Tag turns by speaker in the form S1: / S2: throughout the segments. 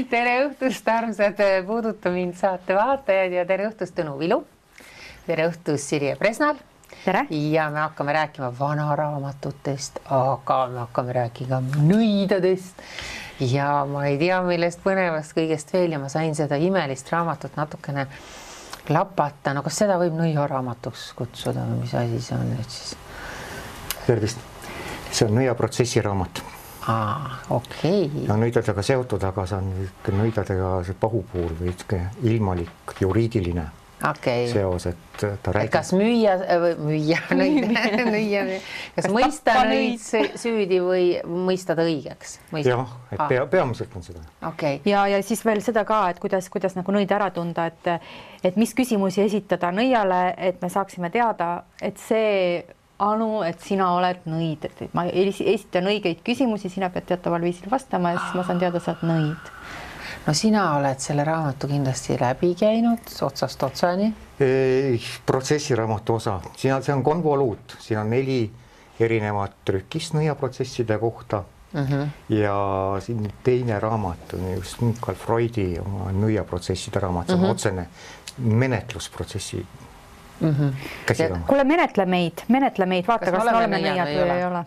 S1: Tere õhtust, armsad Puuduta mind saate vaatajad ja tere õhtust Tõnu Vilu. Tere õhtust Sirje Presnal.
S2: Tere.
S1: Ja me hakkame rääkima vanaraamatutest, aga me hakkame rääkima nõidadest. Ja ma ei tea, millest põnevast kõigest veel ja ma sain seda imelist raamatut natukene lapata. No kas seda võib nõiaraamatuks kutsuda või mis asi see on nüüd siis?
S3: Tervist. See on nõiaprotsessi raamat.
S1: Okei.
S3: Ja nõidadega seotud, aga see on nõidadega see pahupuur või ilmalik juriidiline seos, et ta räägib.
S1: Kas müüa kas mõista nõid süüdi või mõista ta õigeks?
S3: Jah, et peamiselt on seda.
S1: Okay.
S2: Ja siis veel seda ka, et kuidas nagu nõid ära tunda, et mis küsimusi esitada nõiale, et me saaksime teada, et see Anu, et sina oled nõid, et ma esitan õigeid küsimusi, sina pead teataval viisil vastama ja siis ma saan teada, sa oled nõid.
S1: No sina oled selle raamatu kindlasti läbi käinud otsast otsani.
S3: Protsessiraamatu osa. See on konvoluut. Siin on 4 erinevat trükist nõiaprotsesside kohta. Ja siin teine raamat on just Michael Freudi nõiaprotsesside raamat. See on otsene menetlusprotsessi.
S2: Kuule, menetle meid, vaata, kas me oleme nõiad või ei ole.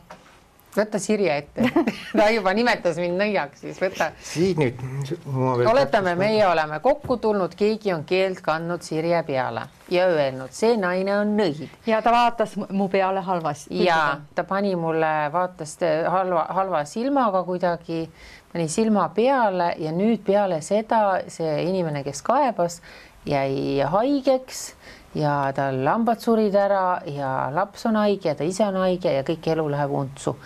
S1: Võtta Sirje ette. Ta juba nimetas mind nõiaks, siis võta.
S3: Siin nüüd.
S1: Oletame, meie oleme kokku tulnud, keegi on keelt kandnud Sirje peale ja öelnud, see naine on nõid.
S2: Ja ta vaatas mu peale halvasti.
S1: Ja ta pani mulle, vaatas halva silmaga kuidagi, pani silma peale ja nüüd peale seda see inimene, kes kaebas, jäi haigeks ja tal lambad surid ära ja laps on haige ja ta ise on haige ja kõik elu läheb untsu.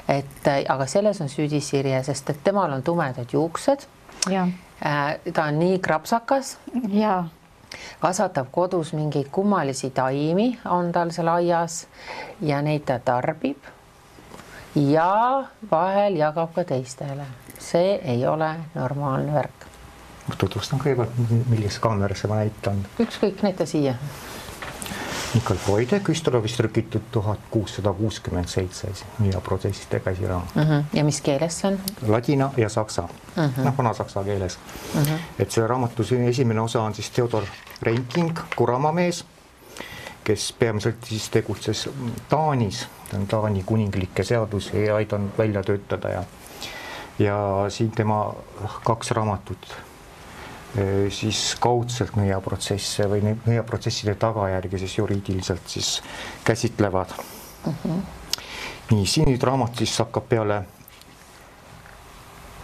S1: Aga selles on süüdi Sirje, sest et temal on tumedad juuksed.
S2: Ja.
S1: Ta on nii krapsakas.
S2: Ja.
S1: Kasvatab kodus mingeid kummalisi taimi, on tal seal aias ja neid ta tarbib ja vahel jagab ka teistele. See ei ole normaalne värk.
S3: Ma tutvustan kõigepealt, millise kaamerasse ma näitan.
S1: Ükskõik, näita siia.
S3: Michael Freudi Küstelovist trükitud 1667 nõiaprotsesside käsiraamat.
S1: Ja mis keeles see on?
S3: Ladina ja saksa. Vana-saksa keeles. Et selle raamatu esimene osa on siis Theodor Reinking, Kuramamees, kes peamiselt siis tegutses Taanis. Ta on Taani kuninglikke seadusi aidanud välja töötada ja siin tema 2 raamatut siis kaudselt nõiaprotsesse või nõiaprotsesside tagajärgi siis juriidiliselt siis käsitlevad. Nii, siin nüüd raamat siis hakkab peale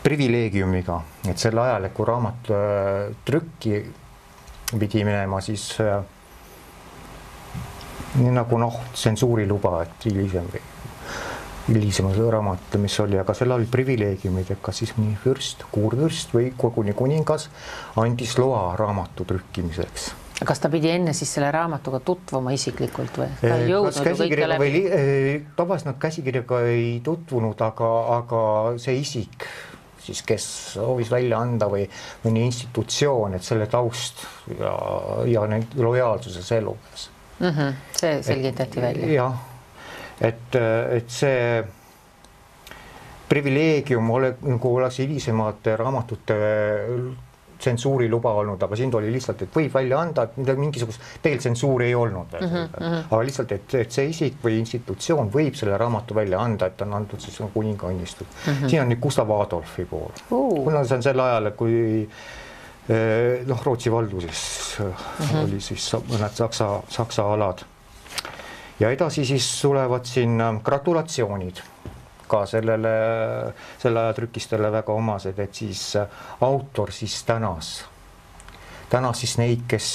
S3: privileegiumiga, et sel ajal, kui raamat trükki pidi minema, siis nii nagu tsensuuriluba, et hilisema raamat, mis oli, aga seal oli privileegiumid, et kas siis mõni fürst, kuurvürst või koguni kuningas andis loa raamatu trükkimiseks.
S1: Kas ta pidi enne siis selle raamatuga tutvuma isiklikult või? Ta ei jõudnud ju kõike läbi?
S3: Tavaliselt nad käsikirjaga ei tutvunud, aga see isik, siis kes soovis välja anda või mõni institutsioon, et selle taust ja need lojaalsuse elukas.
S1: See selgitati välja.
S3: Jah. Et see privileegium oleks hilisemate raamatute tsensuuri luba olnud, aga siin oli lihtsalt, et võib välja anda, et mingisugust tegelikult tsensuuri ei olnud. Aga lihtsalt, et see isik või institutsioon võib selle raamatu välja anda, et on antud siis kuninga õnnistud. Siin on nüüd Gustav Adolfi pool. Kuna see on sel ajal, kui Rootsi valduses oli siis mõned saksa alad. Ja edasi siis tulevad siin gratulatsioonid ka selle ajatrükistele väga omased, et siis autor siis tänas siis neid, kes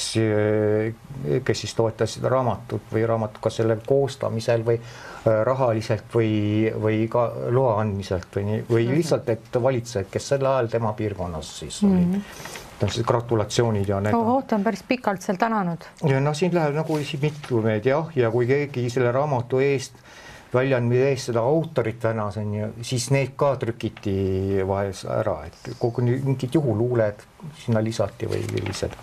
S3: siis toetasid raamatut või raamatut ka selle koostamisel või rahaliselt või ka loa andmiselt või lihtsalt, et valitsejad, kes sel ajal tema piirkonnas siis olid. Siis gratulatsioonid ja need.
S2: Ta on päris pikalt seal tänanud.
S3: Ja siin läheb nagu mitlumeed ja kui keegi selle raamatu eest väljaandmise eest seda autorit tänas, siis need ka trükiti vahel ära, et kogu mingid juhuluuled sinna lisati või sellised.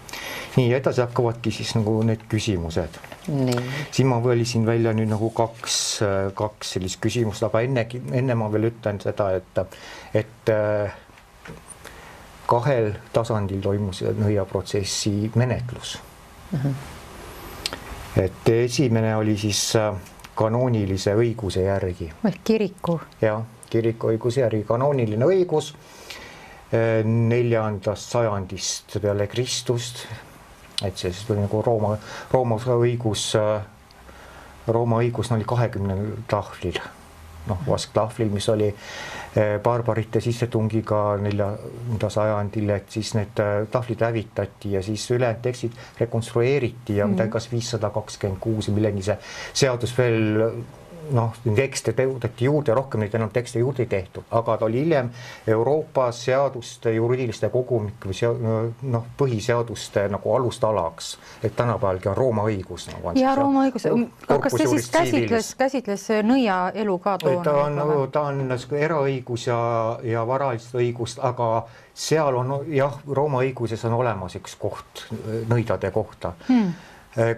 S3: Nii, edasi hakkavadki siis nagu need küsimused. Siin ma võlisin välja nüüd nagu kaks sellist küsimust, aga enne ma veel ütlen seda, et 2 tasandil toimus nõiaprotsessi menetlus. Et esimene oli siis kanoonilise õiguse järgi.
S2: Kiriku.
S3: Jah, kiriku õiguse järgi kanooniline õigus 4. sajandist peale Kristust. Et see siis oli nagu Rooma õigus oli 20 tahvlil. Vasktahvlil, mis oli barbarite sissetungiga 4. sajandil, et siis need tahvlid hävitati ja siis ülejäänud tekstid rekonstrueeriti ja midagi kas 526 millegi see seadus veel tekste tõudeti juurde, rohkem neid enam tekste juurde ei tehtud, aga ta oli hiljem Euroopa seaduste juriidiliste kogumik või põhiseaduste nagu alustalaks, et tänapäevalgi on Rooma õigus.
S2: Ja Rooma õigus, kas see siis käsitles nõia elu ka toona?
S3: Ta on eraõigus ja varalist õigust, aga seal on Rooma õiguses on olemas üks koht nõidade kohta.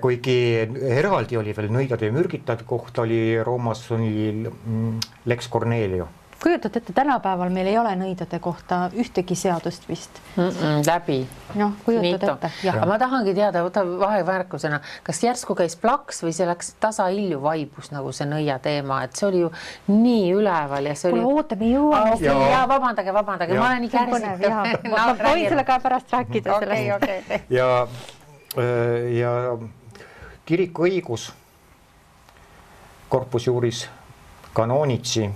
S3: Kuigi eraldi oli veel nõidade ja mürgitajate kohta oli Roomas Lex Cornelio.
S2: Kujutate ette, tänapäeval meil ei ole nõidade kohta ühtegi seadust vist.
S1: Läbi.
S2: Kujutad ette.
S1: Aga ma tahangi teada, vahevärkusena, kas järsku käis plaks või see läks tasahilju vaibus nagu see nõia teema, et see oli ju nii üleval ja see oli...
S2: Kuule, oota, me jõuame.
S1: Ja vabandage, ma olen nii kärsitav.
S2: Ma võin selle ka pärast rääkida sellest.
S3: Ja kiriku õigus Corpus Juris Canonici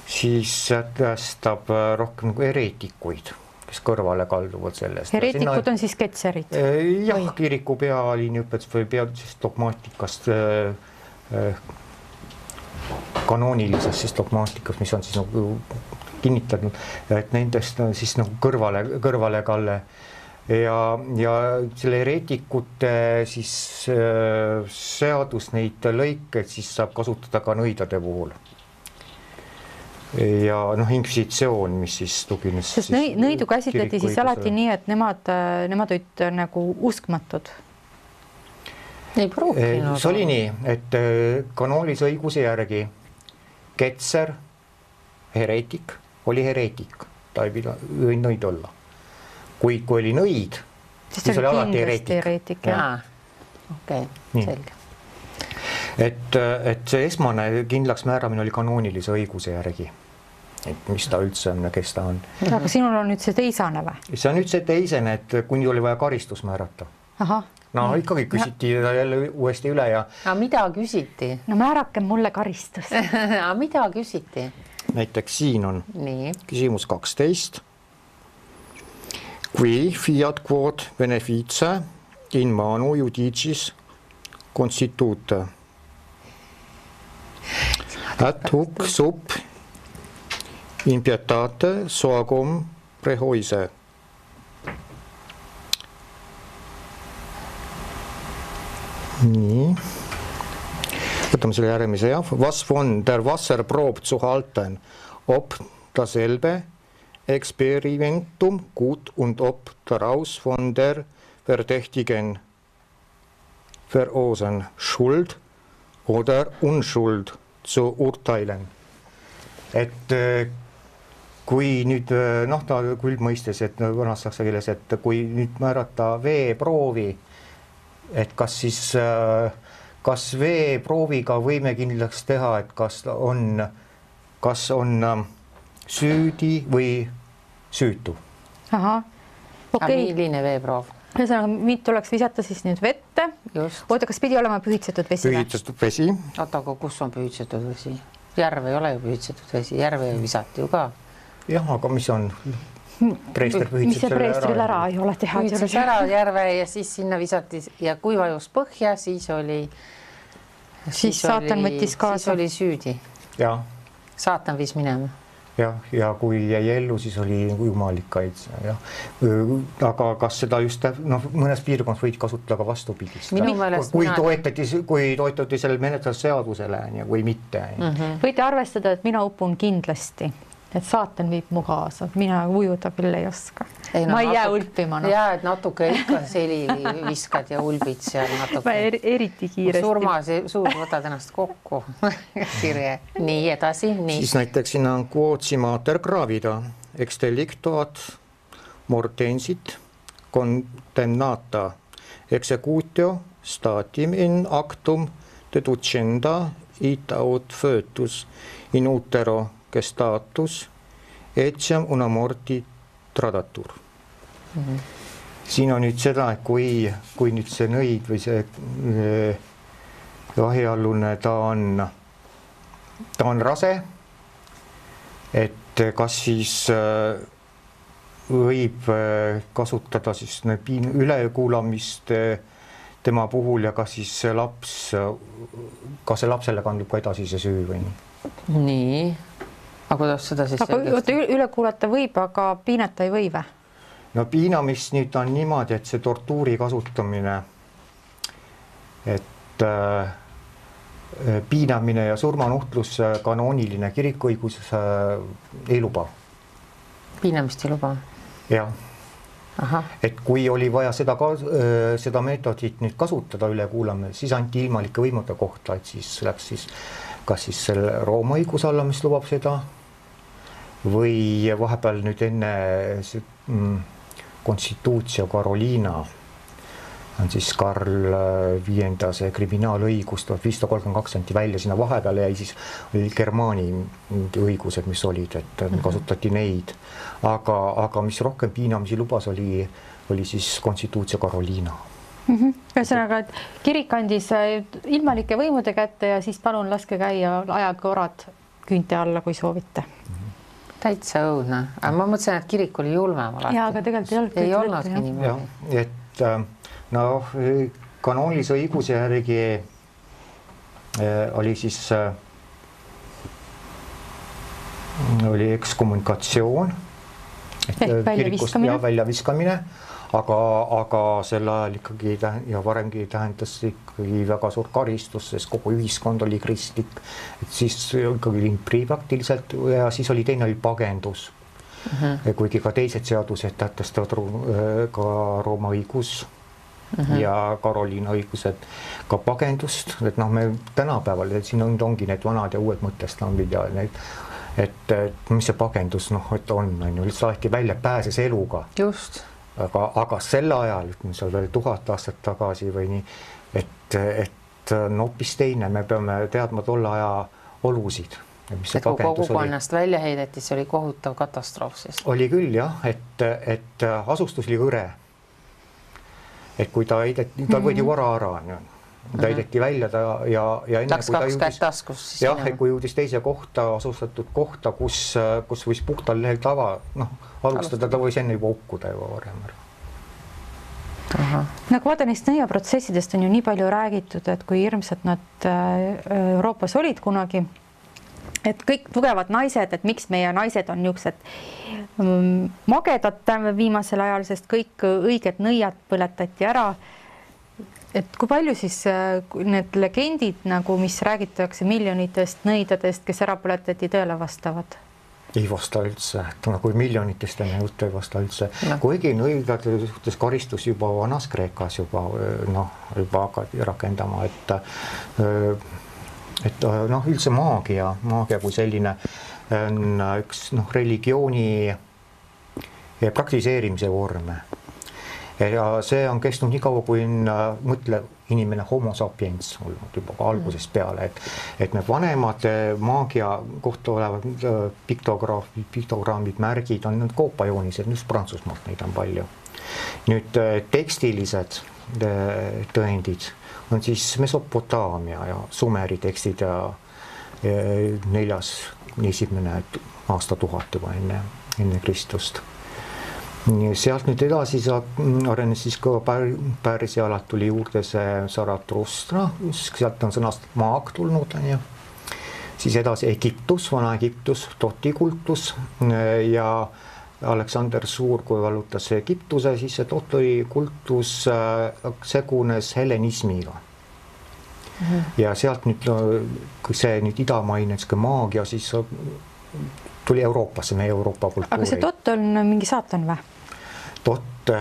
S3: siis sätestab rohkem nagu hereetikuid, kes kõrvale kalduvad sellest.
S2: Hereetikud on siis ketserid?
S3: Jah, kiriku pealiiniõpetus või peadusest dogmaatikast, kanoonilisest siis dogmaatikast, mis on siis nagu kinnitatud, et nendest on siis nagu kõrvale kalle. Ja selle hereetikute siis seadus neid lõikeid siis saab kasutada ka nõidade puhul. Ja inkvisitsioon, mis siis tugines.
S2: Sest nõidu käsitleti siis alati nii, et nemad olid nagu uskmatud.
S1: Ei pruukinud.
S3: See oli nii, et kanoonilise õiguse järgi ketser, hereetik, oli hereetik. Ta ei võinud nõid olla. Kui oli nõid, siis oli alati hereetik.
S1: Okei, selge.
S3: Et see esmane kindlaks määramine oli kanoonilise õiguse järgi, et mis ta üldse on ja kes ta on.
S2: Aga sinul on nüüd see teisane või?
S3: See on nüüd see teisene, et kuni oli vaja karistus määrata. Ikkagi küsiti jälle uuesti üle ja...
S1: Aga mida küsiti?
S2: No määrake mulle karistus.
S1: Aga mida küsiti?
S3: Näiteks siin on küsimus 12. Qui fiat quod beneficia in manu judicis constituta. At huc sub impietate soagum prehoise. Nii. Võtame selle järgmise, Was von der Wasserprobe zu halten, ob dasselbe Experimentum gut und ob daraus von der Verdächtigen Verursachen Schuld oder Unschuld zu urteilen. Et kui nüüd, ta kuldmõistes, et vanas saksa keeles, et kui nüüd määrata veeproovi, et kas veeprooviga võime kindlaks teha, et kas on süüdi või süütu.
S1: Milline veeproov?
S2: Mind tuleks visata siis nüüd vette. Oota, kas pidi olema pühitsetud vesi?
S3: Pühitsetud vesi.
S1: Oota, aga kus on pühitsetud vesi? Järve ei ole ju pühitsetud vesi, järve visati ju ka.
S3: Jah, aga mis on? Preester
S2: mis see preestril ära ei ole teha?
S1: Pühitses ära järve ja siis sinna visati ja kui vajus põhja, siis
S2: saatan võttis kaasa.
S1: Siis oli süüdi.
S3: Ja.
S1: Saatan viis minema.
S3: Ja kui jäi ellu, siis oli jumalikaid. Aga kas seda just mõnes piirkonnas võid kasutada ka vastupidist? Kui toetati selle menetlusseadusele või mitte.
S2: Võite arvestada, et mina upun kindlasti, et saatan viib mu kaasa. Mina ujuda küll ei oska. Ma ei jää ulpima.
S1: Jaa, et natuke ikka seli viskad ja ulbid seal natuke.
S2: Ma eriti kiiresti.
S1: Surmas suur võtad ennast kokku. Kirje. Nii edasi.
S3: Siis näiteks sinna on quod si mater gravida, ex delictoat mortensit condemnata executio statim in actum deducenda ita aut foetus in utero gestatus etiam una morti tradatur. Siin on nüüd seda, et kui nüüd see nõid või see jahiallune, ta on rase, et kas siis võib kasutada siis ülekuulamist tema puhul ja kas siis see lapsele kandub ka edasi see süü või nii?
S1: Nii, aga kuidas seda siis
S2: üle kuulata võib, aga piinata ei või või?
S3: No piinamist nüüd on niimoodi, et see tortuuri kasutamine, et piinamine ja surmanuhtlus kanooniline kirikuõigus ei luba.
S1: Piinamist ei luba?
S3: Jah. Et kui oli vaja seda meetodit nüüd kasutada üle kuulame, siis anti ilmalike võimude kohta, et siis läks siis kas siis selle Rooma õiguse alla, mis lubab seda, või vahepeal nüüd enne Constitutio Carolina on siis Karl V see kriminaalõigus 1532 anti välja, sinna vahepeale jäi siis Germaani õigused, mis olid, et kasutati neid, aga mis rohkem piinamisi lubas, oli siis Constitutio Carolina.
S2: Ühesõnaga, et kirik andis ilmalike võimude kätte ja siis palun laske käia ajage orad küünte alla, kui soovite.
S1: Täitsa õudne, aga ma mõtlesin, et kirik oli julmem alati.
S2: Jaa, aga tegelikult
S1: ei olnudki niimoodi.
S3: Et kanoonilise õiguse järgi oli siis oli ekskommunikatsioon kirikust ja väljaviskamine, aga sel ajal ikkagi ja varemgi tähendas ikkagi väga suur karistus, sest kogu ühiskond oli kristlik, et siis ikkagi limpri praktiliselt ja siis oli teine oli pagendus. Kuigi ka teised seadused tähtestavad ka Rooma õigus ja Karoliina õigused ka pagendust, et me tänapäeval, et siin ongi need vanad ja uued mõtestambid ja need, et mis see pagendus et on saati välja pääses eluga.
S1: Just.
S3: Aga selle ajal, seal veel 1000 aastat tagasi või nii, et hoopis teine, me peame teadma tolle aja olusid.
S1: Et kui kogukonnast välja heideti, see oli kohutav katastroof siis.
S3: Oli küll jah, et asustus oli hõre. Et kui ta heideti, ta võidi vara ära, ta heideti välja ja enne
S1: läks kaks kätt taskus siis.
S3: Jah, et kui jõudis teise kohta, asustatud kohta, kus võis puhtal lehel alustada, ta võis enne juba hukkuda juba varem ära.
S2: Nagu vaata neist nõiaprotsessidest on ju nii palju räägitud, et kui hirmsad nad Euroopas olid kunagi, et kõik tugevad naised, et miks meie naised on niisugused magedad viimasel ajal, sest kõik õiged nõiad põletati ära. Et kui palju siis need legendid, nagu mis räägitakse miljonitest nõidadest, kes ära põletati, tõele vastavad?
S3: Ei vasta üldse, kui miljonitest enne juttu ei vasta üldse. Kuigi nõidade suhtes karistus juba vanas Kreekas juba hakati rakendama, et üldse maagia kui selline on üks religiooni praktiseerimise vorme. Ja see on kestnud nii kaua, kui mõtle inimene homo sapiens olnud juba algusest peale, et need vanemad maagia kohta olevad piktogrammid, märgid on need koopajoonised, just Prantsusmaalt neid on palju. Nüüd tekstilised tõendid on siis Mesopotaamia ja Sumeri tekstid ja 4. aastatuhat juba enne Kristust. Sealt nüüd edasi arenes siis ka Pärsialalt tuli juurde see Zarathustra, sealt on sõnast maag tulnud, siis edasi Egiptus, vana Egiptus, totikultus ja Aleksander Suur, kui vallutas Egiptuse, siis see totikultus segunes helenismiga. Ja sealt nüüd, kui see nüüd idamaine maagia, siis tuli Euroopasse, meie Euroopa kultuuri.
S2: Aga see tott on mingi saatan või?
S3: Tott,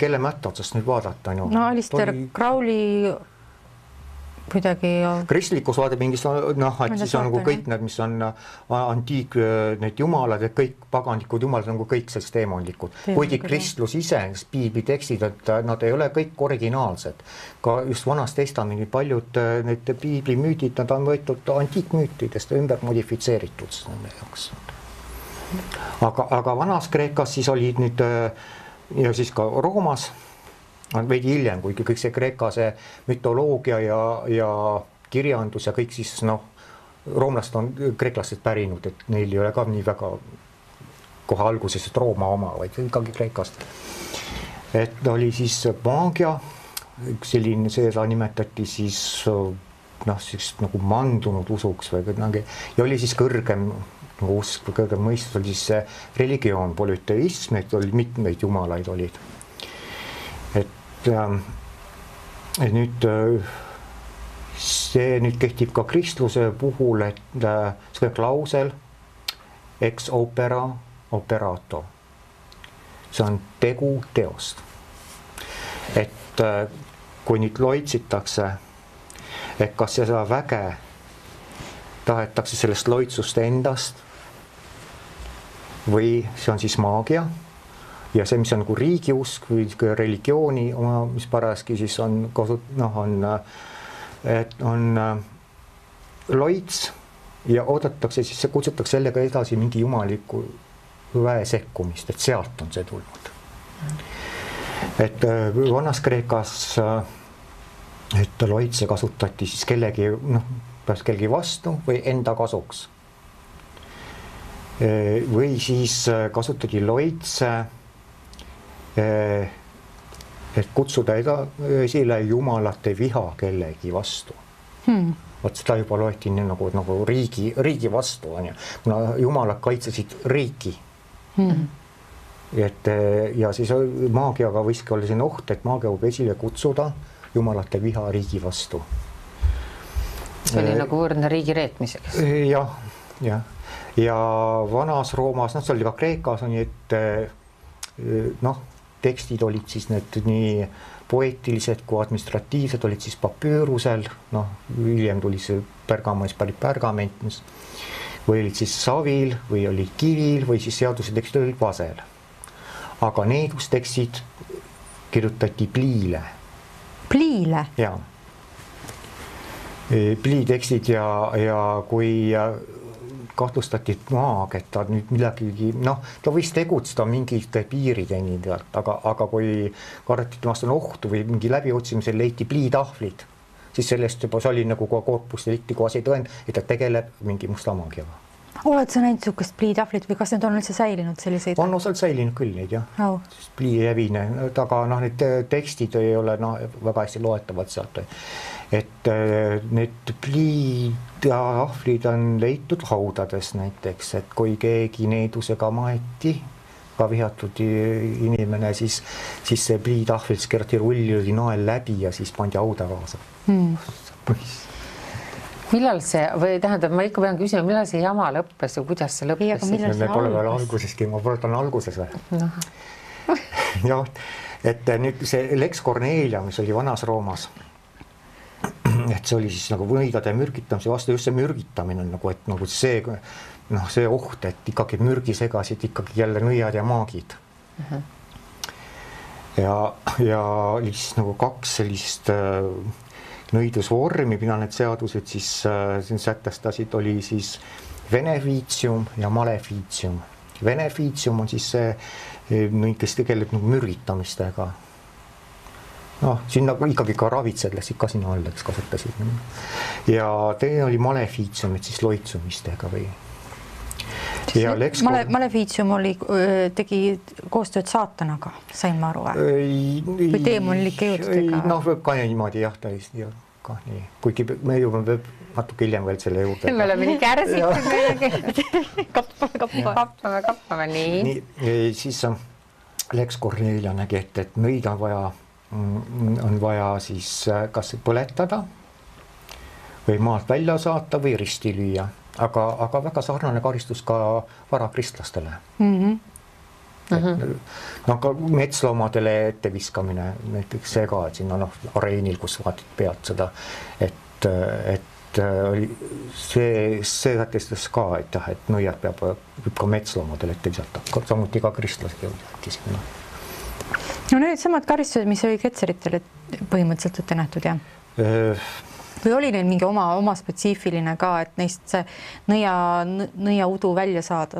S3: kelle mätta otsast nüüd vaadata?
S2: No Alistair Crowley kuidagi
S3: kristlikus vaade mingis, noh, et siis on nagu kõik need, mis on antiik, need jumalad, et kõik paganlikud jumalad on nagu kõik sellest teemonlikud. Kuigi kristlus ise, piibli tekstid, et nad ei ole kõik originaalsed. Ka just Vanas Testamendi paljud need piibli müüdid, nad on võetud antiikmüütidest ümber modifitseeritud nende jaoks. Aga Vanas Kreekas siis olid nüüd ja siis ka Roomas veidi hiljem, kuigi kõik see Kreeka, see mütoloogia ja kirjandus ja kõik siis roomlased on kreeklastest pärinud, et neil ei ole ka nii väga kohe alguses Rooma oma, vaid ikkagi Kreekast. Et oli siis maagia, selline, seda nimetati siis nagu mandunud usuks või kuidagi ja oli siis kõrgem usk või kõrgem mõistus oli siis see religioon, polüteism, et oli mitmeid jumalaid olid. Et nüüd see nüüd kehtib ka kristluse puhul, et see klausel ex opera operato. See on tegu teost. Et kui nüüd loitsitakse, et kas seda väge tahetakse sellest loitsust endast või see on siis maagia ja see, mis on nagu riigiusk või religiooni oma, mis parajaski siis on loits ja oodatakse, siis see kutsutakse sellega edasi mingi jumaliku väe sekkumist, et sealt on see tulnud. Et Vanas Kreekas, et loitse kasutati siis kellegi vastu või enda kasuks. Või siis kasutati loitse et kutsuda esile jumalate viha kellegi vastu. Vot seda juba loeti nii nagu riigi vastu, kuna jumalad kaitsesid riiki. Ja siis maagiaga võiski olla siin oht, et maagia võib esile kutsuda jumalate viha riigi vastu.
S1: See oli nagu võrdne riigi reetmiseks.
S3: Ja Vanas Roomas, see oli ka Kreekas, et tekstid olid siis need nii poeetilised kui administratiivsed, olid siis papüürusel, hiljem tuli see pergament, või olid siis savil või olid kivil või siis seaduse tekstid olid vasel. Aga needustekstid kirjutati pliile.
S2: Pliile?
S3: Jaa. Pliitekstid ja kui kahtlustati maag, et ta nüüd midagi, ta võis tegutseda mingite piirideni, aga kui kardeti vastu ohtu või mingi läbiotsimisel leiti pliitahvlid, siis sellest juba see oli nagu korpus delikti koasi tõend, et ta tegeleb mingi musta maagiaga.
S2: Oled sa näinud sihukest pliitahvlit või kas need on üldse säilinud selliseid?
S3: On osalt säilinud küll neid, jah. Plii jävine, aga need tekstid ei ole väga hästi loetavad sealt. Et need pliitahvlid on leitud haudades näiteks, et kui keegi needusega maeti, ka vihatud inimene, siis see pliitahvil keerati rulli oli nael läbi ja siis pandi hauda kaasa.
S1: Millal see, või tähendab, ma ikka pean küsima, millal see jama lõppes ja kuidas see lõppes?
S3: Me pole veel alguseski, ma pole alguses või. Jah, et nüüd see Lex Cornelia, mis oli Vanas Roomas, et see oli siis nagu võidade mürgitamise vastu, just see mürgitamine on nagu, et nagu see oht, et ikkagi mürgi segasid ikkagi jälle nõiad ja maagid. Ja oli siis nagu kaks sellist nõidusvormi, mida need seadused siis sätestasid, oli siis beneficium ja maleficium. Beneficium on siis see, kes tegeleb nagu mürgitamistega. Siin nagu ikkagi ka ravitsedles ikka sinna alleks kasutasid. Ja teine oli maleficium, et siis loitsumistega või.
S2: Maleficium tegi koostööd saatanaga, sain ma aru või teemonlike jõududega?
S3: Võib ka niimoodi jah, täiesti ka nii. Kuigi me jõuame natuke hiljem veel selle juurde.
S1: Me oleme nii kärsitud. Kappame, nii.
S3: Siis Lex Cornelia nägi, et nõid on vaja siis kas põletada või maalt välja saata või risti lüüa. Aga väga sarnane karistus ka varakristlastele. Ka metsloomadele etteviskamine, näiteks see ka, et sinna areenil, kus vaatid pealt seda, et see sätestas ka, et jah, et nõiad võib ka metsloomadel ette visata, samuti ka kristlased jõudis.
S2: No need samad karistused, mis oli ketseritele põhimõtteliselt ette nähtud, jah? Või oli neil mingi oma spetsiifiline ka, et neist see nõia udu välja saada?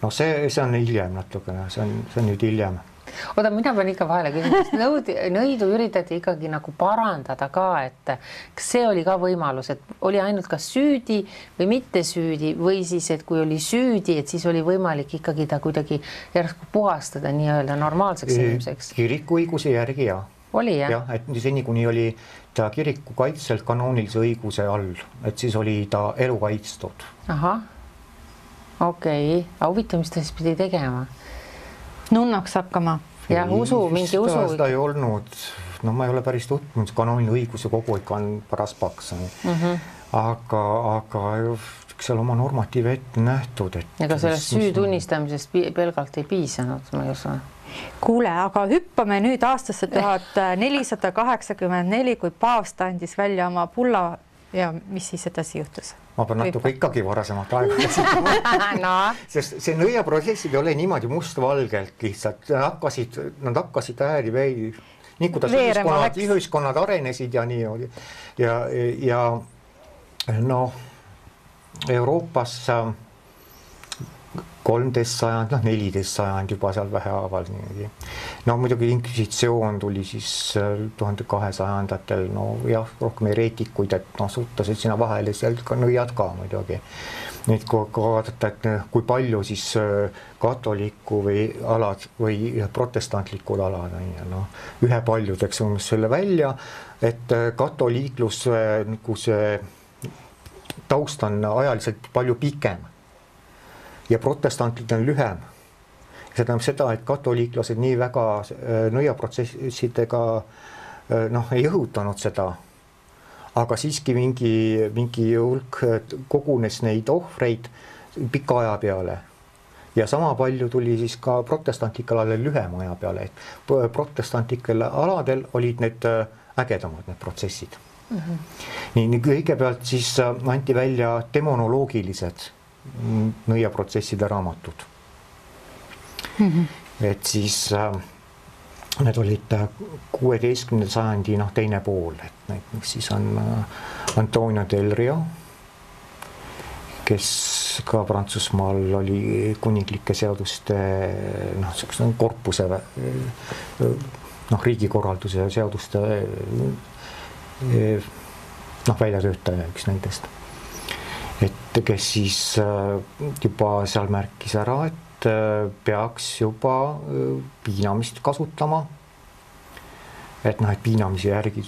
S3: No see on hiljem natukene, see on nüüd hiljem.
S1: Oota, mina pean ikka vahele küsima, nõidu üritati ikkagi nagu parandada ka, et kas see oli ka võimalus, et oli ainult kas süüdi või mitte süüdi või siis, et kui oli süüdi, et siis oli võimalik ikkagi ta kuidagi järsku puhastada nii-öelda normaalseks inimeseks?
S3: Kirikuõiguse järgi jah.
S1: Oli jah?
S3: Jah, et seni kuni oli ta kiriku kaitselt kanoonilise õiguse all, et siis oli ta elu kaitstud.
S1: Ahah, okei. Aga huvitav, mis ta siis pidi tegema?
S2: Nunnaks hakkama.
S1: Jah, mingi usu.
S3: Seda ei olnud, no ma ei ole päris tutvunud, kanooline õiguse kogu ikka on paras paks. Aga seal oma normatiiv ette nähtud.
S1: Ega sellest süü tunnistamisest pelgalt ei piisanud, ma ei usu.
S2: Kuule, aga hüppame nüüd aastasse 1484, kui paavst andis välja oma bulla ja mis siis edasi juhtus?
S3: Ma pean natuke ikkagi varasemat aega
S1: no.
S3: Sest see nõiaprotsessid ei ole niimoodi mustvalgelt lihtsalt, nad hakkasid ääri nii kuidas ühiskonnad arenesid ja nii ja noh, Euroopas 13 sajand, 14 sajand juba seal vähehaaval niimoodi. No muidugi inkvisitsioon tuli siis 1200-ndatel, no jah, rohkem ereetikuid, et suttasid sinna vahele seal ka nõiad ka muidugi. Nüüd kui vaadata, et kui palju siis katoliku või alad või protestantlikud alad, ühe paljudeks on selle välja, et katoliiklus nagu see taust on ajaliselt palju pikem. Ja protestantid on lühem. See tähendab seda, et katoliiklased nii väga nõiaprotsessidega ei õhutanud seda, aga siiski mingi hulk kogunes neid ohvreid pika aja peale. Ja sama palju tuli siis ka protestantlikel aladel lühem aja peale, et protestantlikel aladel olid need ägedamad need protsessid. Nii kõigepealt siis anti välja demonoloogilised nõiaprotsesside raamatud. Et siis need olid 16. sajandi teine pool, et siis on Antonio Del Rio, kes ka Prantsusmaal oli kuninglike seaduste korpuse riigikorralduse seaduste väljatöötaja üks nendest. Et kes siis juba seal märkis ära, et peaks juba piinamist kasutama. Et piinamise järgi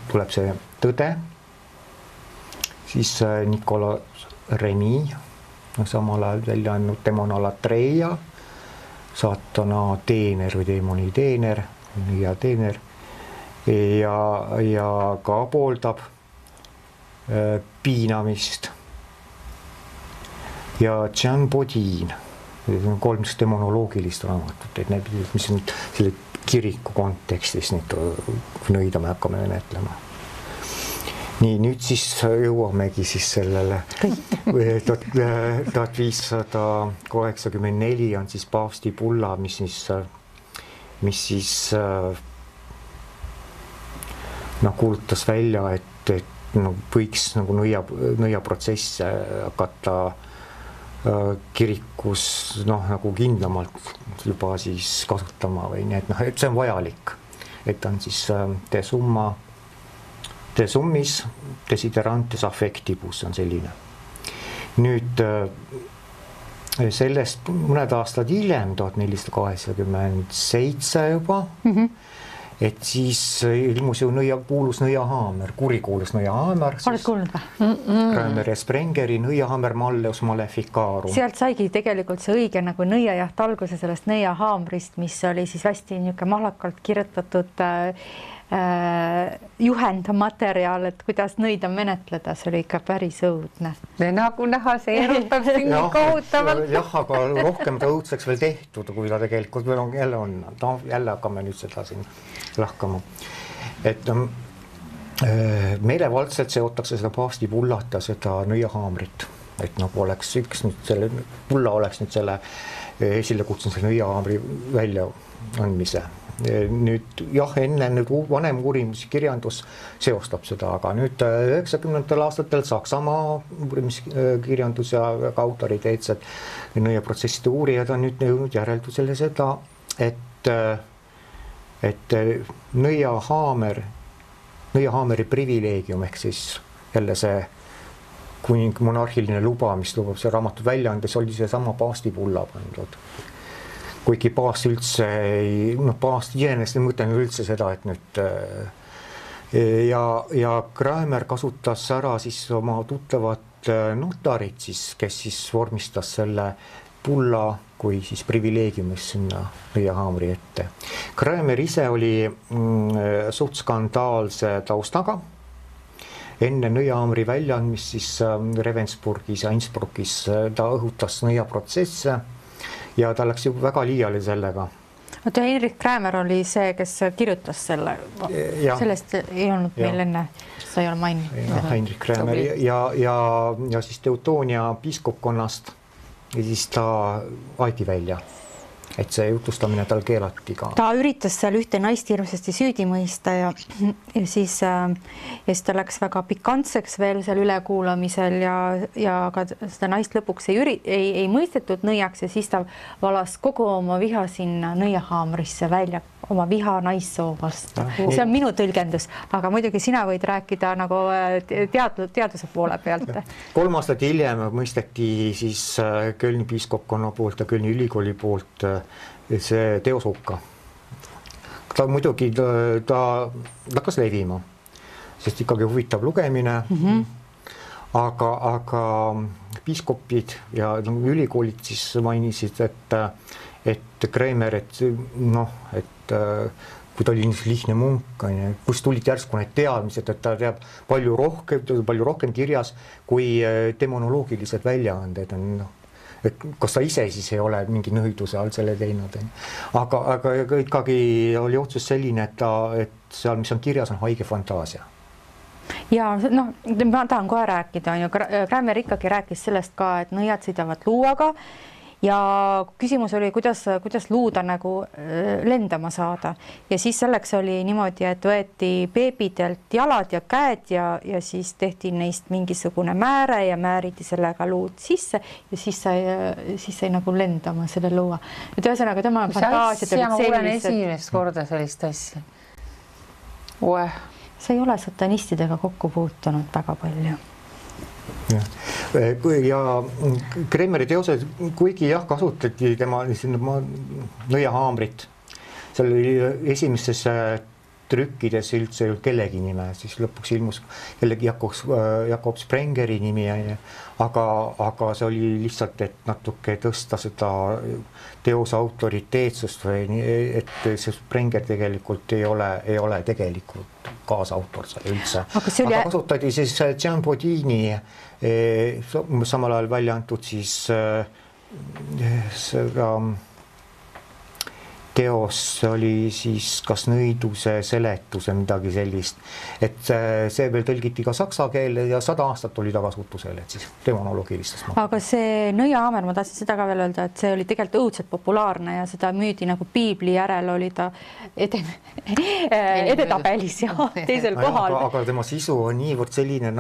S3: tuleb see tõde. Siis Nicolas Remy, samal ajal välja andnud Demona Latreia, saatana teener või deemoni teener ja teener ja ka pooldab piinamist. Ja Jean Bodin, 3 demonoloogilist raamatut, et need, mis on selle kiriku kontekstis nõida me hakkame menetlema. Nii, nüüd siis jõuamegi siis sellele 1584 on siis paavsti bulla, mis siis kuulutas välja, et võiks nõiaprotsess hakata kirikus kindlamalt juba siis kasutama või nii, et see on vajalik, et on siis de summis desiderantes affectibus on selline. Nüüd sellest mõned aastad hiljem, 1487 juba, et siis ilmus ju kuulus nõiahaamer, kurikuulus nõiahaamer.
S2: Oled kuulnud või?
S3: Kramer ja Sprengeri nõiahaamer Malleus Maleficarum.
S2: Sealt saigi tegelikult see õige nõiajaht alguse sellest nõiahaamrist, mis oli siis hästi mahlakalt kirjutatud juhendmateriaal, et kuidas nõida menetleda, see oli ikka päris õudne.
S1: Nagu näha, see erutab siin kohutavalt.
S3: Jah, aga rohkem ta õudseks veel tehtud, kui ta tegelikult jälle on. Jälle hakkame nüüd seda siin lahkama. Et meelevaldselt seotakse seda paavstipullat ja seda nõiahaamrit, et nagu oleks üks nüüd selle pulla oleks nüüd selle esile kutsunud selle nõiahaamri välja andmise. Nüüd jah, enne nüüd vanem uurimiskirjandus seostab seda, aga nüüd 90. aastatel Saksamaa uurimiskirjandus ja autoriteetsed nõiaprotsesside uurijad on nüüd jõudnud järeldusele seda, et nõiahaameri privileegium ehk siis jälle see kuning monarhiline luba, mis lubab see raamatu välja andes, oli see sama paavstipulla pandud. Kuigi paavst üldse ei, paavst iseenesest ei mõtelnud üldse seda, et nüüd ja Kramer kasutas ära siis oma tuttavat notarit siis, kes siis vormistas selle pulla kui siis privileegiumis sinna nõiahaamri ette. Kramer ise oli suht skandaalse taustaga. Enne nõiahaamri väljaandmist siis Ravensburgis ja Innsbruckis ta õhutas nõiaprotsesse ja ta läks juba väga liiale sellega.
S2: Oota, Heinrich Kramer oli see, kes kirjutas selle. Sellest ei olnud meil enne, sa ei ole maininud.
S3: Heinrich Kramer ja siis Teutonia piiskopkonnast ja siis ta aeti välja. Et see jutustamine tal keelati ka.
S2: Ta üritas seal ühte naist hirmsasti süüdi mõista ja siis ta läks väga pikantseks veel seal ülekuulamisel ja ka seda naist lõpuks ei mõistetud nõiaks ja siis ta valas kogu oma viha sinna nõiahaamrisse välja, oma viha naissoo vastu. See on minu tõlgendus, aga muidugi sina võid rääkida nagu teaduse poole pealt.
S3: 3 aastat hiljem mõisteti siis Kölni piiskopkonna poolt ja Kölni ülikooli poolt see teoshukka. Ta muidugi ta hakkas levima, sest ikkagi huvitav lugemine, aga piiskopid ja ülikoolid siis mainisid, et Kramer, et kui ta oli lihtne munk, kus tulid järsku need teadmised, et ta teab palju rohkem kirjas kui demonoloogilised väljaanded on, et kas ta ise siis ei ole mingi nõiduse all selle teinud. Aga ikkagi oli otsus selline, et seal, mis on kirjas, on haige fantaasia.
S2: Ja ma tahan kohe rääkida. Kramer ikkagi rääkis sellest ka, et nõiad sõidavad luuaga ja küsimus oli, kuidas luuda nagu lendama saada. Ja siis selleks oli niimoodi, et võeti beebidelt jalad ja käed ja siis tehti neist mingisugune määre ja määriti sellega luud sisse ja siis sai nagu lendama selle luua. Et ühesõnaga tema fantaasiad
S1: olid sellised. Ma kuulen esimest korda sellist asja.
S2: Sa ei ole satanistidega kokku puutunud väga palju.
S3: Ja Kremeri teosed, kuigi jah, kasutati tema nõiahaamrit, seal oli esimestes trükkides üldse kellegi nime, siis lõpuks ilmus jällegi Jakob Sprengeri nimi, aga see oli lihtsalt, et natuke tõsta seda teose autoriteetsust või et see Sprenger tegelikult ei ole tegelikult kaasautor seal üldse. Aga kasutati siis Jean Bodini samal ajal välja antud siis seda teos oli siis kas nõiduse seletus või midagi sellist, et see veel tõlgiti ka saksa keele ja 100 aastat oli tagasutusel, et siis demonoloogilistest.
S2: Aga see nõiahaamer, ma tahtsin seda ka veel öelda, et see oli tegelikult õudselt populaarne ja seda müüdi nagu piibli järel oli ta edetabelis ja teisel kohal.
S3: Aga tema sisu on niivõrd selline,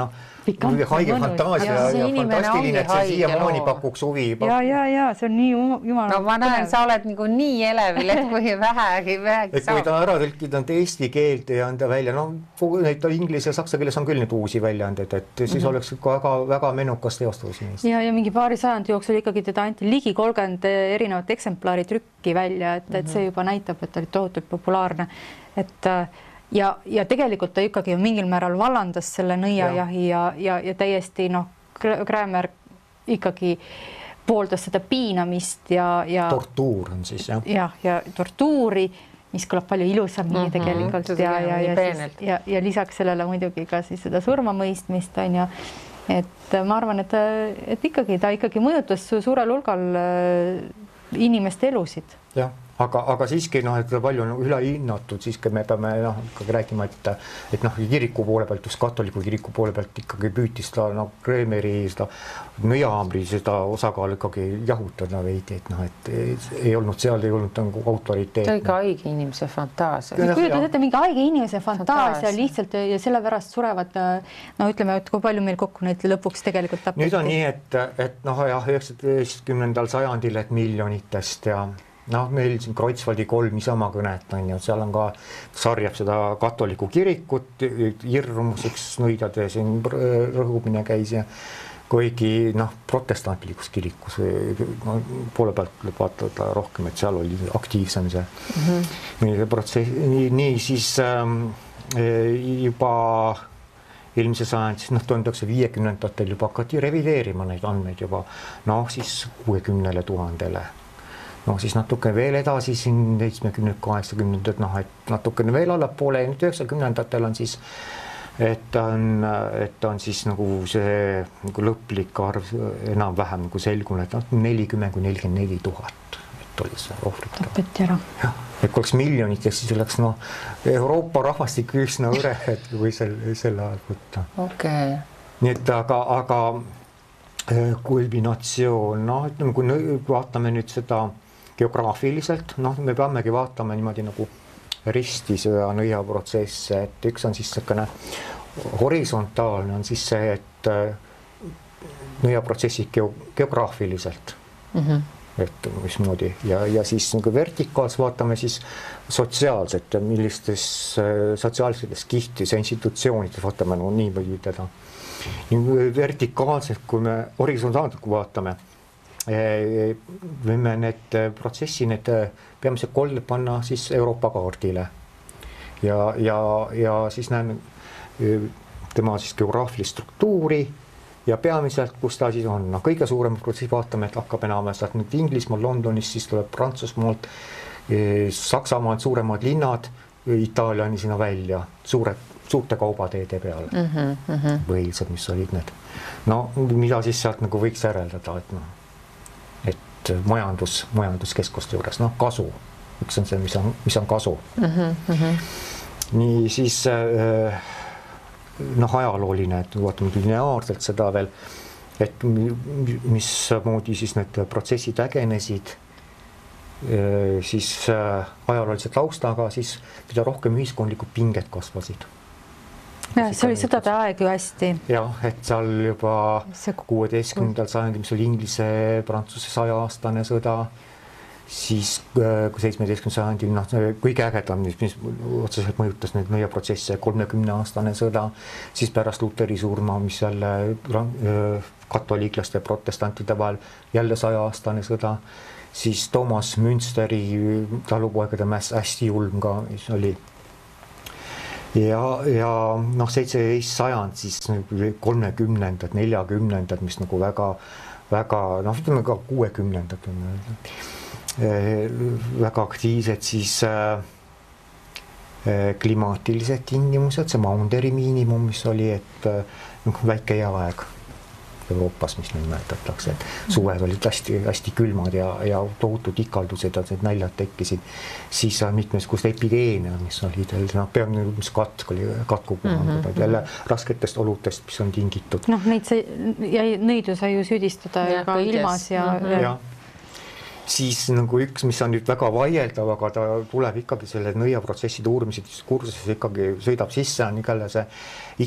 S3: haige fantaasia ja fantastiline, et see siiamaani pakuks huvi.
S2: Ja, see on nii jumala.
S1: No ma näen, sa oled nagu nii elevil, et kui vähegi
S3: saab. Kui ta ära tõlkida eesti keelt ja anda välja, neid inglise ja saksa keeles on küll nüüd uusi väljaanded, et siis oleks väga menukas teostus.
S2: Ja mingi paari sajandi jooksul ikkagi teda anti ligi 30 erinevat eksemplari trükki välja, et see juba näitab, et ta oli tohutult populaarne. Ja tegelikult ta ikkagi mingil määral vallandas selle nõiajahi ja täiesti Kramer ikkagi pooldas seda piinamist ja
S3: tortuur on siis,
S2: jah. Ja tortuuri, mis kõlab palju ilusamini tegelikult ja lisaks sellele muidugi ka siis seda surmamõistmist on ja et ma arvan, et ikkagi ta ikkagi mõjutas suurel hulgal inimeste elusid.
S3: Jah, aga siiski noh, et palju on ülehinnatud, siiski me peame noh, ikkagi räägima, et noh, kiriku poole pealt, just katoliku kiriku poole pealt ikkagi püüti seda noh, Kreemeri seda nõiahaamri seda osakaalu ikkagi jahutada veidi, et noh, et ei olnud seal, ei olnud nagu autoriteet.
S1: See oli ka haige inimese fantaasia.
S2: Kujutad ette, mingi haige inimese fantaasia lihtsalt ja sellepärast surevad, no ütleme, et kui palju meil kokku neid lõpuks tegelikult tapeti.
S3: Nüüd on nii, et noh, jah, 19. sajandil, et miljonitest ja noh, meil siin Kreutzwaldi 3 Isamaa kõnet on ju, seal on ka sarjab seda katoliku kirikut, hirmuseks nõidade siin rõhumine käis ja kuigi noh, protestantlikus kirikus poole pealt vaadata rohkem, et seal oli aktiivsem see protsess. Nii siis juba eelmise sajand, siis noh, 1950-ndatel juba hakati revideerima neid andmeid juba noh, siis 60 000-le. No siis natuke veel edasi siin 70-80-ndad, noh, et natukene veel allapoole ja nüüd 90-ndatel on siis, et on siis nagu see nagu lõplik arv enam-vähem nagu selgunud, et 40-44 000, et oli see ohvrit.
S2: Tapeti ära.
S3: Jah, et kui oleks miljonitest, siis oleks noh, Euroopa rahvastik üsna õre, et kui selle ajal võtta.
S1: Okay.
S3: Nii et aga kulminatsioon, noh, ütleme, kui vaatame nüüd seda geograafiliselt, noh, me peamegi vaatama niimoodi nagu risti seda nõiaprotsesse, et üks on siis selline horisontaalne on siis see, et nõiaprotsessid geograafiliselt, et mismoodi ja siis nagu vertikaalselt vaatame siis sotsiaalselt, millistes sotsiaalsetes kihtis ja institutsioonides vaatame no, nii või teda. Vertikaalselt, kui me horisontaalselt kui vaatame, võime need protsessi, need peamised kolled panna siis Euroopa kaardile ja siis näeme tema siis geograafilist struktuuri ja peamiselt, kus ta siis on. No, kõige suurem protsessi vaatame, et hakkab enam sealt nüüd Inglismaal, Londonis, siis tuleb Prantsusmaalt, Saksamaalt suuremad linnad, Itaaliani sinna välja, suurte kaubateede peale põhilised, mis olid need. No, mida siis sealt nagu võiks järeldada, et noh, majanduskeskuste juures, noh, kasu. Üks on see, mis on kasu. Nii siis noh, ajalooline, et vaatame lineaarselt seda veel, et mismoodi siis need protsessid ägenesid, siis ajaloolise taustaga, siis mida rohkem ühiskondlikud pinged kasvasid.
S2: Ja, see oli sõdade aeg ju hästi.
S3: Jah, et seal juba 16. sajandil, mis oli Inglise-Prantsuse 100-aastane sõda, siis 17. sajandil, noh, kõige ägedam, mis otseselt mõjutas neid nõiaprotsesse, 30-aastane sõda, siis pärast Luteri surma, mis jälle katoliiklaste ja protestantide vahel jälle 100-aastane sõda, siis Thomas Münsteri talupoegade mäss hästi julm ka, mis oli ja noh, 17. sajand, siis 30-ndad, 40-ndad, mis nagu väga, noh, ütleme ka 60-ndad on väga aktiivsed, siis klimaatilised tingimused, see Maunderi miinimum, mis oli, et väike jääaeg Euroopas, mis nimetatakse, et suved olid hästi külmad ja tohutud ikaldused ja need näljad tekkisid, siis mitmesugused epideemia, mis olid, noh, peamine mis katk oli katkupuhangud, jälle rasketest oludest, mis on tingitud.
S2: Noh, nõidu sai ju süüdistada ka ilmas ja
S3: siis nagu üks, mis on nüüd väga vaieldav, aga ta tuleb ikkagi selle nõiaprotsesside uurimised kursuses ikkagi sõidab sisse, on igale see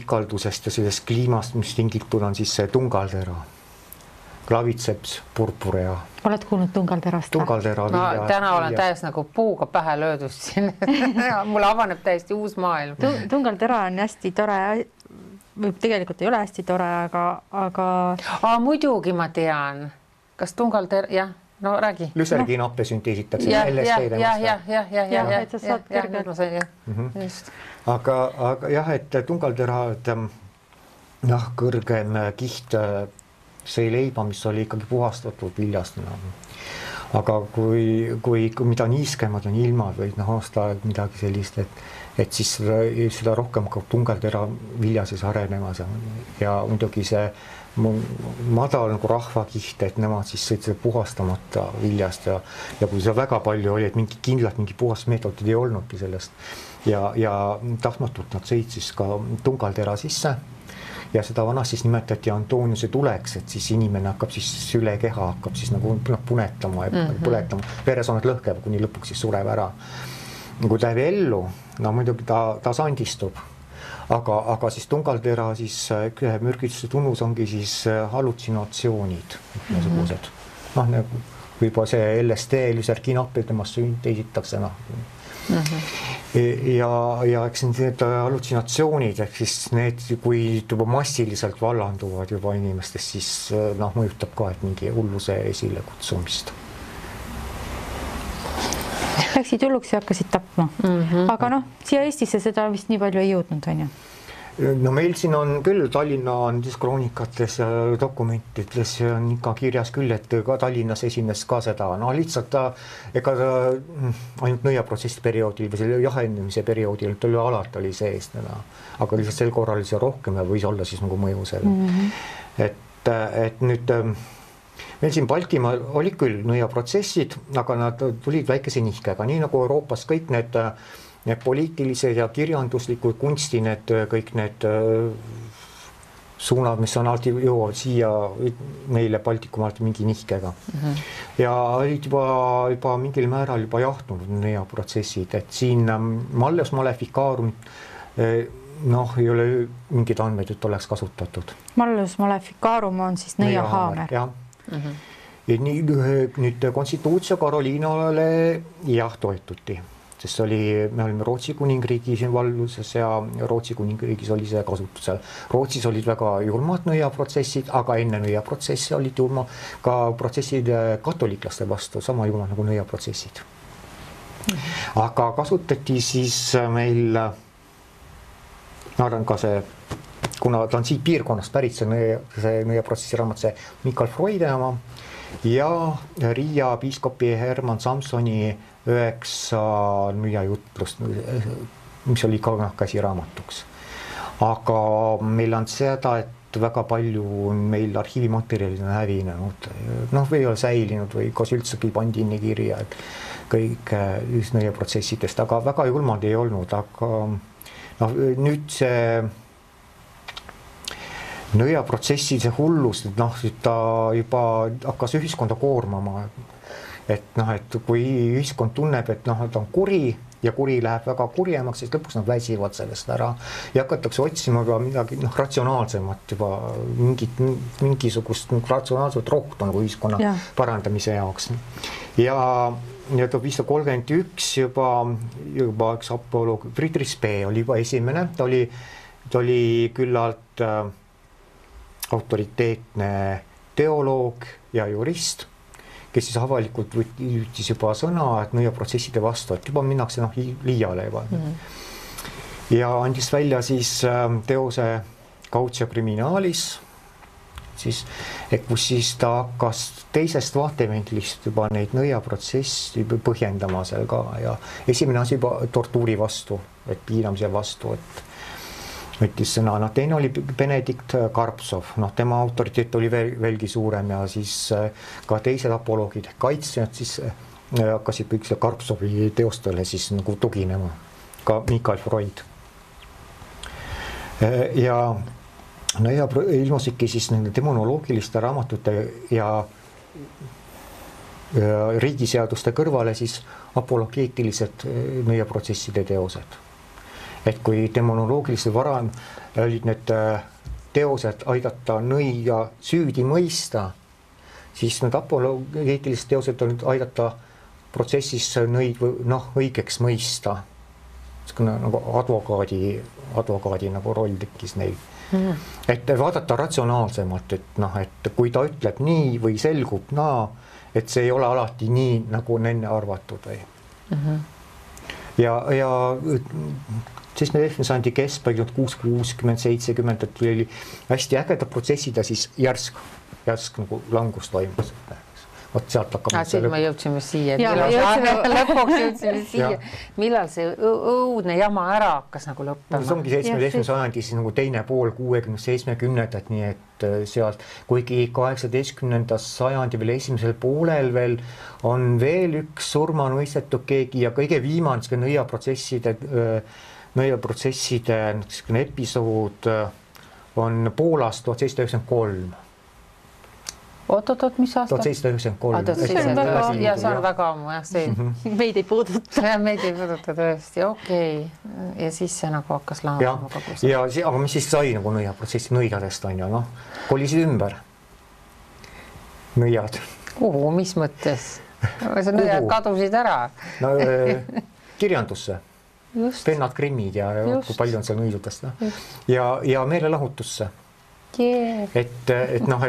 S3: ikaldusest ja sellest kliimast, mis tingitud on siis see tungaldera, Claviceps purpurea.
S2: Oled kuulnud tungalterast?
S3: Tungaldera.
S1: Ma täna olen täiesti nagu puuga pähe löödust siin. Mulle avaneb täiesti uus maailm.
S2: Tungaldera on hästi tore, tegelikult ei ole hästi tore, aga...
S1: Muidugi ma tean. Kas tungaldera, jah? No räägi.
S3: Lüserginappe sünteesitakse. Aga jah, et tungaldera, jah, kõrgem kiht, see leiba, mis oli ikkagi puhastatud viljast. aga kui mida niiskemad on ilmad või aastaaeg midagi sellist, et siis seda rohkem hakkab tungeltera vilja siis arenemas ja muidugi see madal nagu rahvakiht, et nemad siis sõid seda puhastamata viljast ja kui seda väga palju oli, et mingi puhasmeetodid ei olnudki sellest ja tahtmatult nad sõid siis ka tungaltera sisse ja seda vanasti siis nimetati Antoniuse tuleks, et siis inimene hakkab siis üle keha hakkab siis nagu punetama ja põletama, veresoomed lõhkeb, kuni lõpuks siis sureb ära. Kui ta jääb ellu, no muidugi ta sandistub, aga siis tungaltera siis mürgituse tunnus ongi siis hallutsinatsioonid, niisugused. Nagu juba see LSD, lüserginapil temast sünteesitakse, ja eks need hallutsinatsioonid, ehk siis need, kui juba massiliselt vallanduvad juba inimestest, siis mõjutab ka, et mingi hulluse esile kutsumist.
S2: Läksid hulluks ja hakkasid tapma. Aga siia Eestisse seda vist nii palju ei jõudnud, on ju?
S3: No meil siin on küll Tallinna kroonikates ja dokumentides on ikka kirjas küll, et ka Tallinnas esines ka seda, lihtsalt ega ainult nõiaprotsessi perioodil või selle jahenemise perioodil alati oli sees, aga lihtsalt sel korral oli see rohkem ja võis olla siis nagu mõju selle. Et nüüd meil siin Baltimaal oli küll nõiaprotsessid, aga nad tulid väikese nihkega, nii nagu Euroopas kõik need poliitilised ja kirjanduslikud kunsti, kõik need suunad, mis on alati jõuavad siia meile Baltikumaalt mingi nihkega. Ja olid juba mingil määral juba jahtunud nõiaprotsessid, et siin Malleus Maleficarum ei ole mingid andmeid, et oleks kasutatud. Malleus
S2: Maleficarum on siis nõiahaamer.
S3: Jah. Nüüd Constitutio Carolinale toetuti, sest me olime Rootsi kuningriigis valluses ja Rootsi kuningriigis oli see kasutusel. Rootsis olid väga julmad nõiaprotsessid, aga enne nõiaprotsessi olid julma ka protsessid katoliklaste vastu, sama julmad nagu nõiaprotsessid. Aga kasutati siis meil arvan ka see, kuna ta on siit piirkonnast pärit, see nõiaprotsessi raamat, see Mikael Freudi oma ja Riia piiskopi Herman Samsoni 9 nõiajutlust, mis oli ka käsiraamatuks. Aga meil on seda, et väga palju meil arhiivimaterjalid on hävinenud, või ei ole säilinud või kas üldsegi pandi inni kirja, et kõik nõiaprotsessidest, aga väga julmad ei olnud, aga nüüd see nõiaprotsessi see hullus, ta juba hakkas ühiskonda koormama, et kui ühiskond tunneb, et ta on kuri ja kuri läheb väga kurjemaks, siis lõpuks nad väsivad sellest ära ja hakatakse otsima ka midagi ratsionaalsemat, juba mingisugust ratsionaalset rohtu nagu ühiskonna parandamise jaoks. Ja 1531 juba üks apoloog, Friedrich Spee oli juba esimene, ta oli küllalt autoriteetne teoloog ja jurist, kes siis avalikult võttis juba sõna, et nõiaprotsesside vastu, et juba minnakse liiale juba. Ja andis välja siis teose Cautio Criminalis, kus siis ta hakkas teisest vaatevinklist juba neid nõiaprotsessi põhjendama seal ka ja esimene asi juba tortuuri vastu, et piinamise vastu, et võttis sõna. Teine oli Benedikt Karpsov, tema autoriteet oli veelgi suurem ja siis ka teised apoloogid, kaitsjad siis hakkasid kõik selle Karpsovi teostele siis nagu tuginema, ka Mikael Freud. Ja ilmusidki siis nende demonoloogiliste raamatute ja riigiseaduste kõrvale siis apologeetilised nõiaprotsesside teosed. Et kui demonoloogilise varem olid need teosed aidata nõia süüdi mõista, siis need apologeetilised teosed olid aidata protsessis nõid õigeks mõista. Nagu advokaadi nagu roll tekkis neil. Et vaadata ratsionaalsemalt, et kui ta ütleb nii või selgub et see ei ole alati nii, nagu on enne arvatud. Ja 17. sajandi keskpaigalt 60-70, et oli hästi ägedad protsessid ja siis järsk nagu langus toimus. vot sealt hakkab.
S1: Siis me jõudsime siia,
S2: lõpuks
S1: jõudsime siia, millal see õudne jama ära hakkas nagu lõppema.
S3: See ongi 17. sajandi siis nagu teine pool 60-70-ndat, nii et sealt, kuigi 18. sajandi veel esimesel poolel veel on veel üks surmanuistetud keegi ja kõige viimane nõiaprotsesside episood on Poolast 1793.
S1: Oot, mis aasta?
S3: 1793.
S1: Ja see on väga ammu, jah, see
S2: meid ei puuduta.
S1: Meid ei puuduta tõesti, okei. Ja siis see nagu hakkas lahendama kogu see.
S3: Aga mis siis sai nagu nõiaprotsessi nõidadest on ju, kolisid ümber. Nõiad.
S1: Kuhu, mis mõttes? See nõiad kadusid ära.
S3: No, kirjandusse. Pennad Grimmid ja kui palju on seal nõidudest. Ja meelelahutusse. Et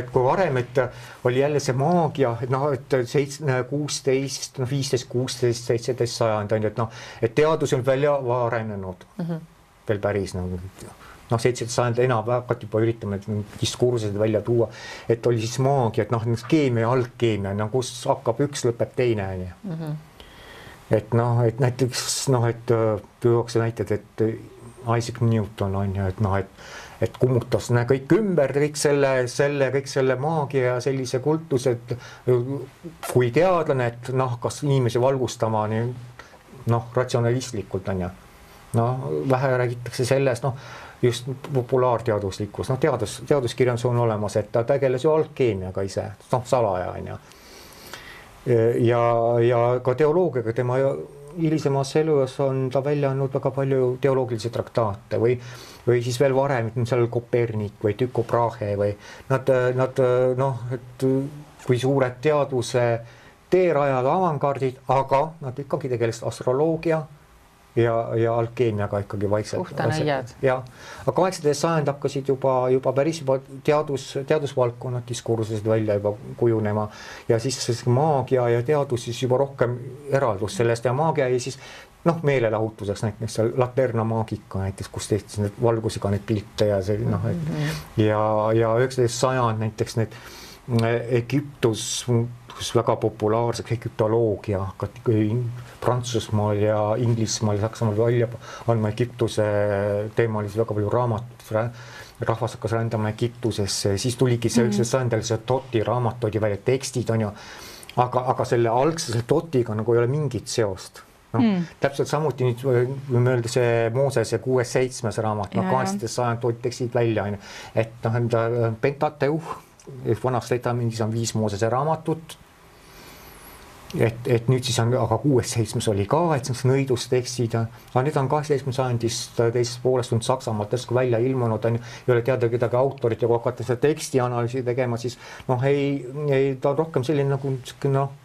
S3: kui varem, et oli jälle see maagia, et 16, 15, 16, 17 sajand on, et teadus on välja arenenud veel päris 17 sajand enam hakati juba üritama diskursused välja tuua, et oli siis maagia, et keemia ja algkeemia, kus hakkab üks, lõpeb teine. Et näiteks, et tuuakse näited, et Isaac Newton on ju, et kummutas kõik ümber, kõik selle maagia ja sellise kultuse, et kui teadlane, et kas inimesi valgustama ratsionalistlikult on ju. Vähe räägitakse sellest, just populaarteaduslikkus, teaduskirjandus on olemas, et ta tegeles ju algkeemiaga ise, salaja on ju. Ja ka teoloogiaga tema hilisemas elus on ta välja andnud väga palju teoloogilisi traktaate või siis veel varem, seal Kopernik või Tycho Brahe või nad et kui suured teaduse teerajad, avangardid, aga nad ikkagi tegelesid astroloogia ja alkeemiaga ikkagi vaikselt.
S1: Puhtanõiad.
S3: Aga 18. sajand hakkasid juba päris teadusvaldkonnad diskursused välja juba kujunema ja siis maagia ja teadus siis juba rohkem eraldus sellest ja maagia ja siis meelelahutuseks näiteks seal Laterna maagika näiteks, kus tehti need valgusega need pilte ja see ja 19. sajand näiteks need Egiptus väga populaarseks Egiptoloogia hakati Prantsusmaal ja Inglismaal ja Saksamaal välja andma Egiptuse teemalisi väga palju raamatut, rahvas hakkas rändama Egiptusesse, siis tuligi see 19. sajandil see Toti raamat oli välja, tekstid on ju, aga selle algse Totiga nagu ei ole mingit seost. Täpselt samuti nüüd võime öelda see Moosese 6-7 raamat, 18. sajand toodi tekstid välja, et Pentateuh, vanast Testamendis on 5 Moosese raamatut, et nüüd siis on, aga 6-7 oli ka, et see nõidustekstid, aga nüüd on 18. sajandist teisest poolest on Saksamaalt täiesti välja ilmunud, ei ole teada kedagi autorit ja kui hakata seda tekstianalüüsi tegema, siis ta on rohkem selline nagu,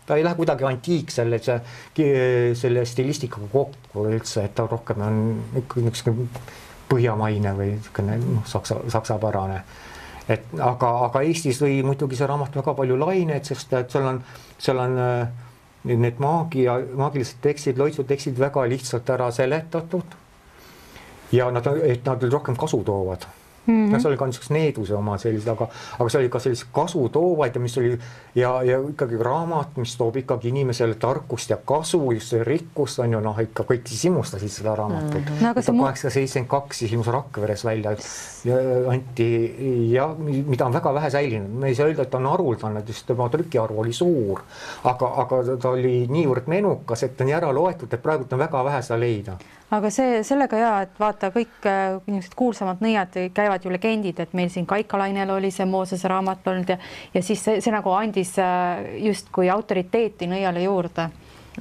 S3: ta ei lähe kuidagi antiik selle stilistikaga kokku üldse, et ta rohkem on ikkagi põhjamaine või saksapärane. Aga Eestis lõi muidugi see raamat väga palju laineid, sest et seal on need maagilised tekstid, loitsutekstid väga lihtsalt ära seletatud ja nad rohkem kasu toovad. See oli ka niisugust needuse oma sellised, aga see oli ka sellised kasu toovaid, mis oli ja ikkagi raamat, mis toob ikkagi inimesele tarkust ja kasu, just see rikkust on ju, ikka kõik siis imustasid seda raamatut. 1872 siis ilmus Rakveres välja anti ja mida on väga vähe säilinud. Me ei saa öelda, et ta on haruldane, sest tema trükiarv oli suur, aga ta oli niivõrd menukas, et ta on ära loetud, et praegu on väga vähe seda leida.
S2: Aga sellega et vaata kõik niisugused kuulsamad nõiad käivad ju legendid, et meil siin Kaikalainel oli see Moosese raamat olnud ja siis see nagu andis justkui autoriteeti nõiale juurde.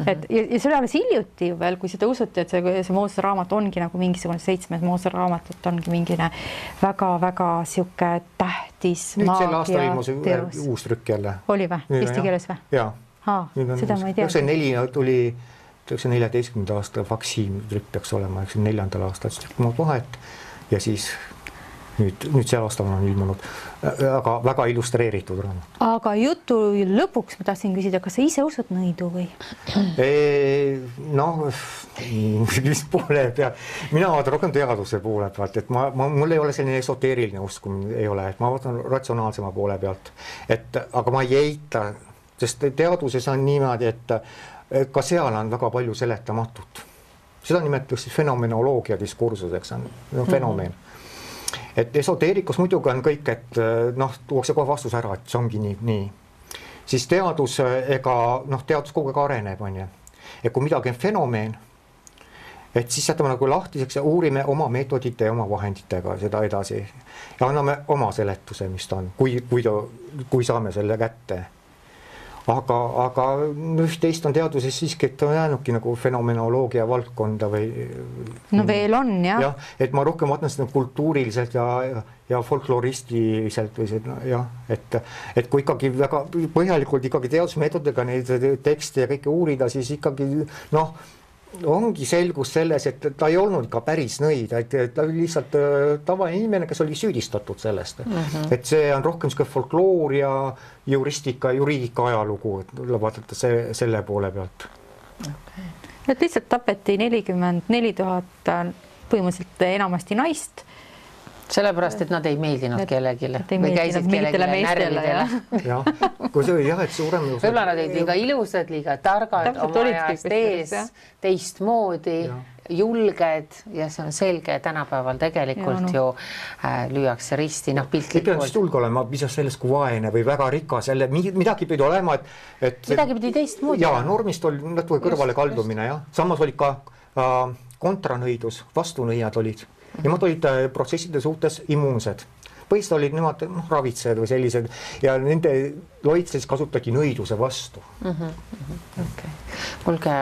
S2: Et, ja see oli alles hiljuti ju veel, kui seda usuti, et see Moosese raamat ongi nagu mingisugune 7 Moosese raamatut ongi mingine väga-väga siuke tähtis
S3: maagia. Nüüd sel aastal ilmus uus trükk jälle.
S2: Oli või? Eesti keeles või?
S3: Jaa.
S2: Seda ma ei tea.
S3: See 4 tuli 14. aasta Faksim trükk peaks olema, 4. aastal trükk vahet ja siis nüüd see aastal on ilmunud, aga väga illustreeritud raamat.
S2: Aga jutu lõpuks ma tahtsin küsida, kas sa ise usud nõidu või?
S3: Mis poole pealt? Mina vaatan rohkem teaduse poole pealt, et mul ei ole selline esoteeriline usk, ei ole, et ma vaatan ratsionaalsema poole pealt, aga ma ei eita sest teaduses on niimoodi, et ka seal on väga palju seletamatut. Seda nimetatakse fenomenoloogia diskursuseks, on fenomen. Et esoteerikus muidugi on kõik, et tuuakse kohe vastus ära, et see ongi nii. Siis teadus, teadus kogu aeg areneb, on ju. Et kui midagi on fenomen, et siis jätame nagu lahtiseks ja uurime oma meetodite ja oma vahenditega seda edasi ja anname oma seletuse, mis ta on, kui saame selle kätte. Aga üht-teist on teaduses siiski, et on jäänudki nagu fenomenoloogia valdkonda või...
S2: No veel on, jah.
S3: Jah, et ma rohkem vaatan seda kultuuriliselt ja folkloristiliselt või see, jah, et kui ikkagi väga põhjalikult ikkagi teadusmeetodega neid tekste ja kõike uurida, siis ikkagi, ongi selgus selles, et ta ei olnud ka päris nõid, et ta oli lihtsalt tavaline inimene, kes oli süüdistatud sellest. Et see on rohkem folkloor ja juriidika ajalugu, et vaadata selle poole pealt.
S2: Okay. Et lihtsalt tapeti 44 000 põhimõtteliselt enamasti naist.
S1: Sellepärast, et nad ei meeldinud kellegile.
S2: Või käisid kellegile närvidele.
S3: Jah, kui see oli jah, et suurem...
S1: Võib-olla nad olid liiga ilusad, liiga targad, oma ajast ees, teistmoodi, julged ja see on selge tänapäeval tegelikult ju lüüakse risti, piltlikult.
S3: Ei pea just julge olema, mis sellest kui vaene või väga rikas, jälle midagi pidi olema, et...
S1: Midagi pidi teistmoodi.
S3: Jaa, normist oli natuke kõrvale kaldumine, jah. Samas oli ka kontranõidus, vastunõiad olid. Nemad olid protsesside suhtes immuunsed. Põhiliselt olid nemad ravitsejad või sellised ja nende loitses kasutati nõiduse vastu.
S1: Okay. Kuulge,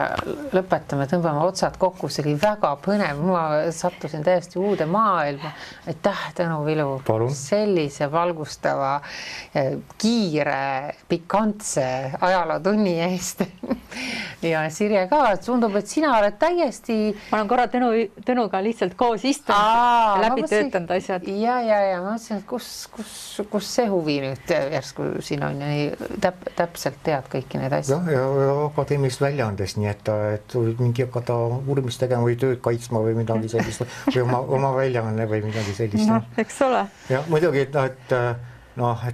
S1: lõpetame, tõmbame otsad kokku, see oli väga põnev, ma sattusin täiesti uude maailma. Aitäh, Tõnu Vilu, sellise valgustava, kiire, pikantse ajalootunni eest. Ja Sirje ka, tundub, et sina oled täiesti...
S2: Ma olen korra Tõnuga lihtsalt koos istunud ja läbi töötanud asjad.
S1: Ja ma mõtlesin, et kus see huvi nüüd järsku siin on ja täpselt tead kõiki neid asju.
S3: Ja akadeemilist väljaandes, nii et mingi hakata uurimist tegema või tööd kaitsma või midagi sellist või oma väljaanne või midagi sellist.
S2: Eks ole.
S3: Ja muidugi, et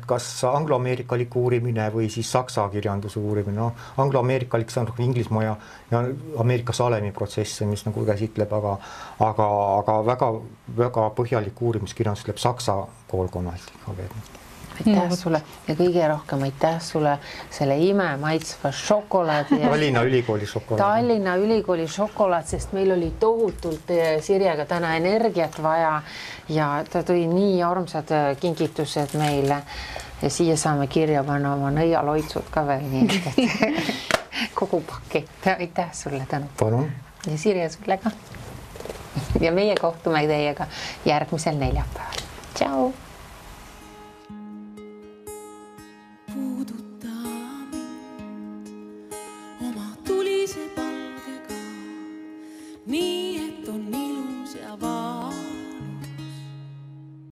S3: kas angloameerikalik uurimine või siis saksa kirjanduse uurimine. Angloameerikalik see on Inglismaa ja Ameerika Salemi protsesse, mis nagu käsitleb, aga väga põhjalik uurimiskirjandus tuleb saksa koolkonnalt.
S1: Aitäh sulle ja kõige rohkem aitäh sulle selle imemaitsva šokolaadi.
S3: Tallinna Ülikooli šokolaad.
S1: Tallinna Ülikooli šokolaad, sest meil oli tohutult Sirjega täna energiat vaja ja ta tõi nii armsad kingitused meile ja siia saame kirja panna oma nõialoitsud ka veel nii, et kogu pakett. Aitäh sulle, Tõnu.
S3: Palun.
S1: Ja Sirje sulle ka. Ja meie kohtume teiega järgmisel neljapäeval. Tšau!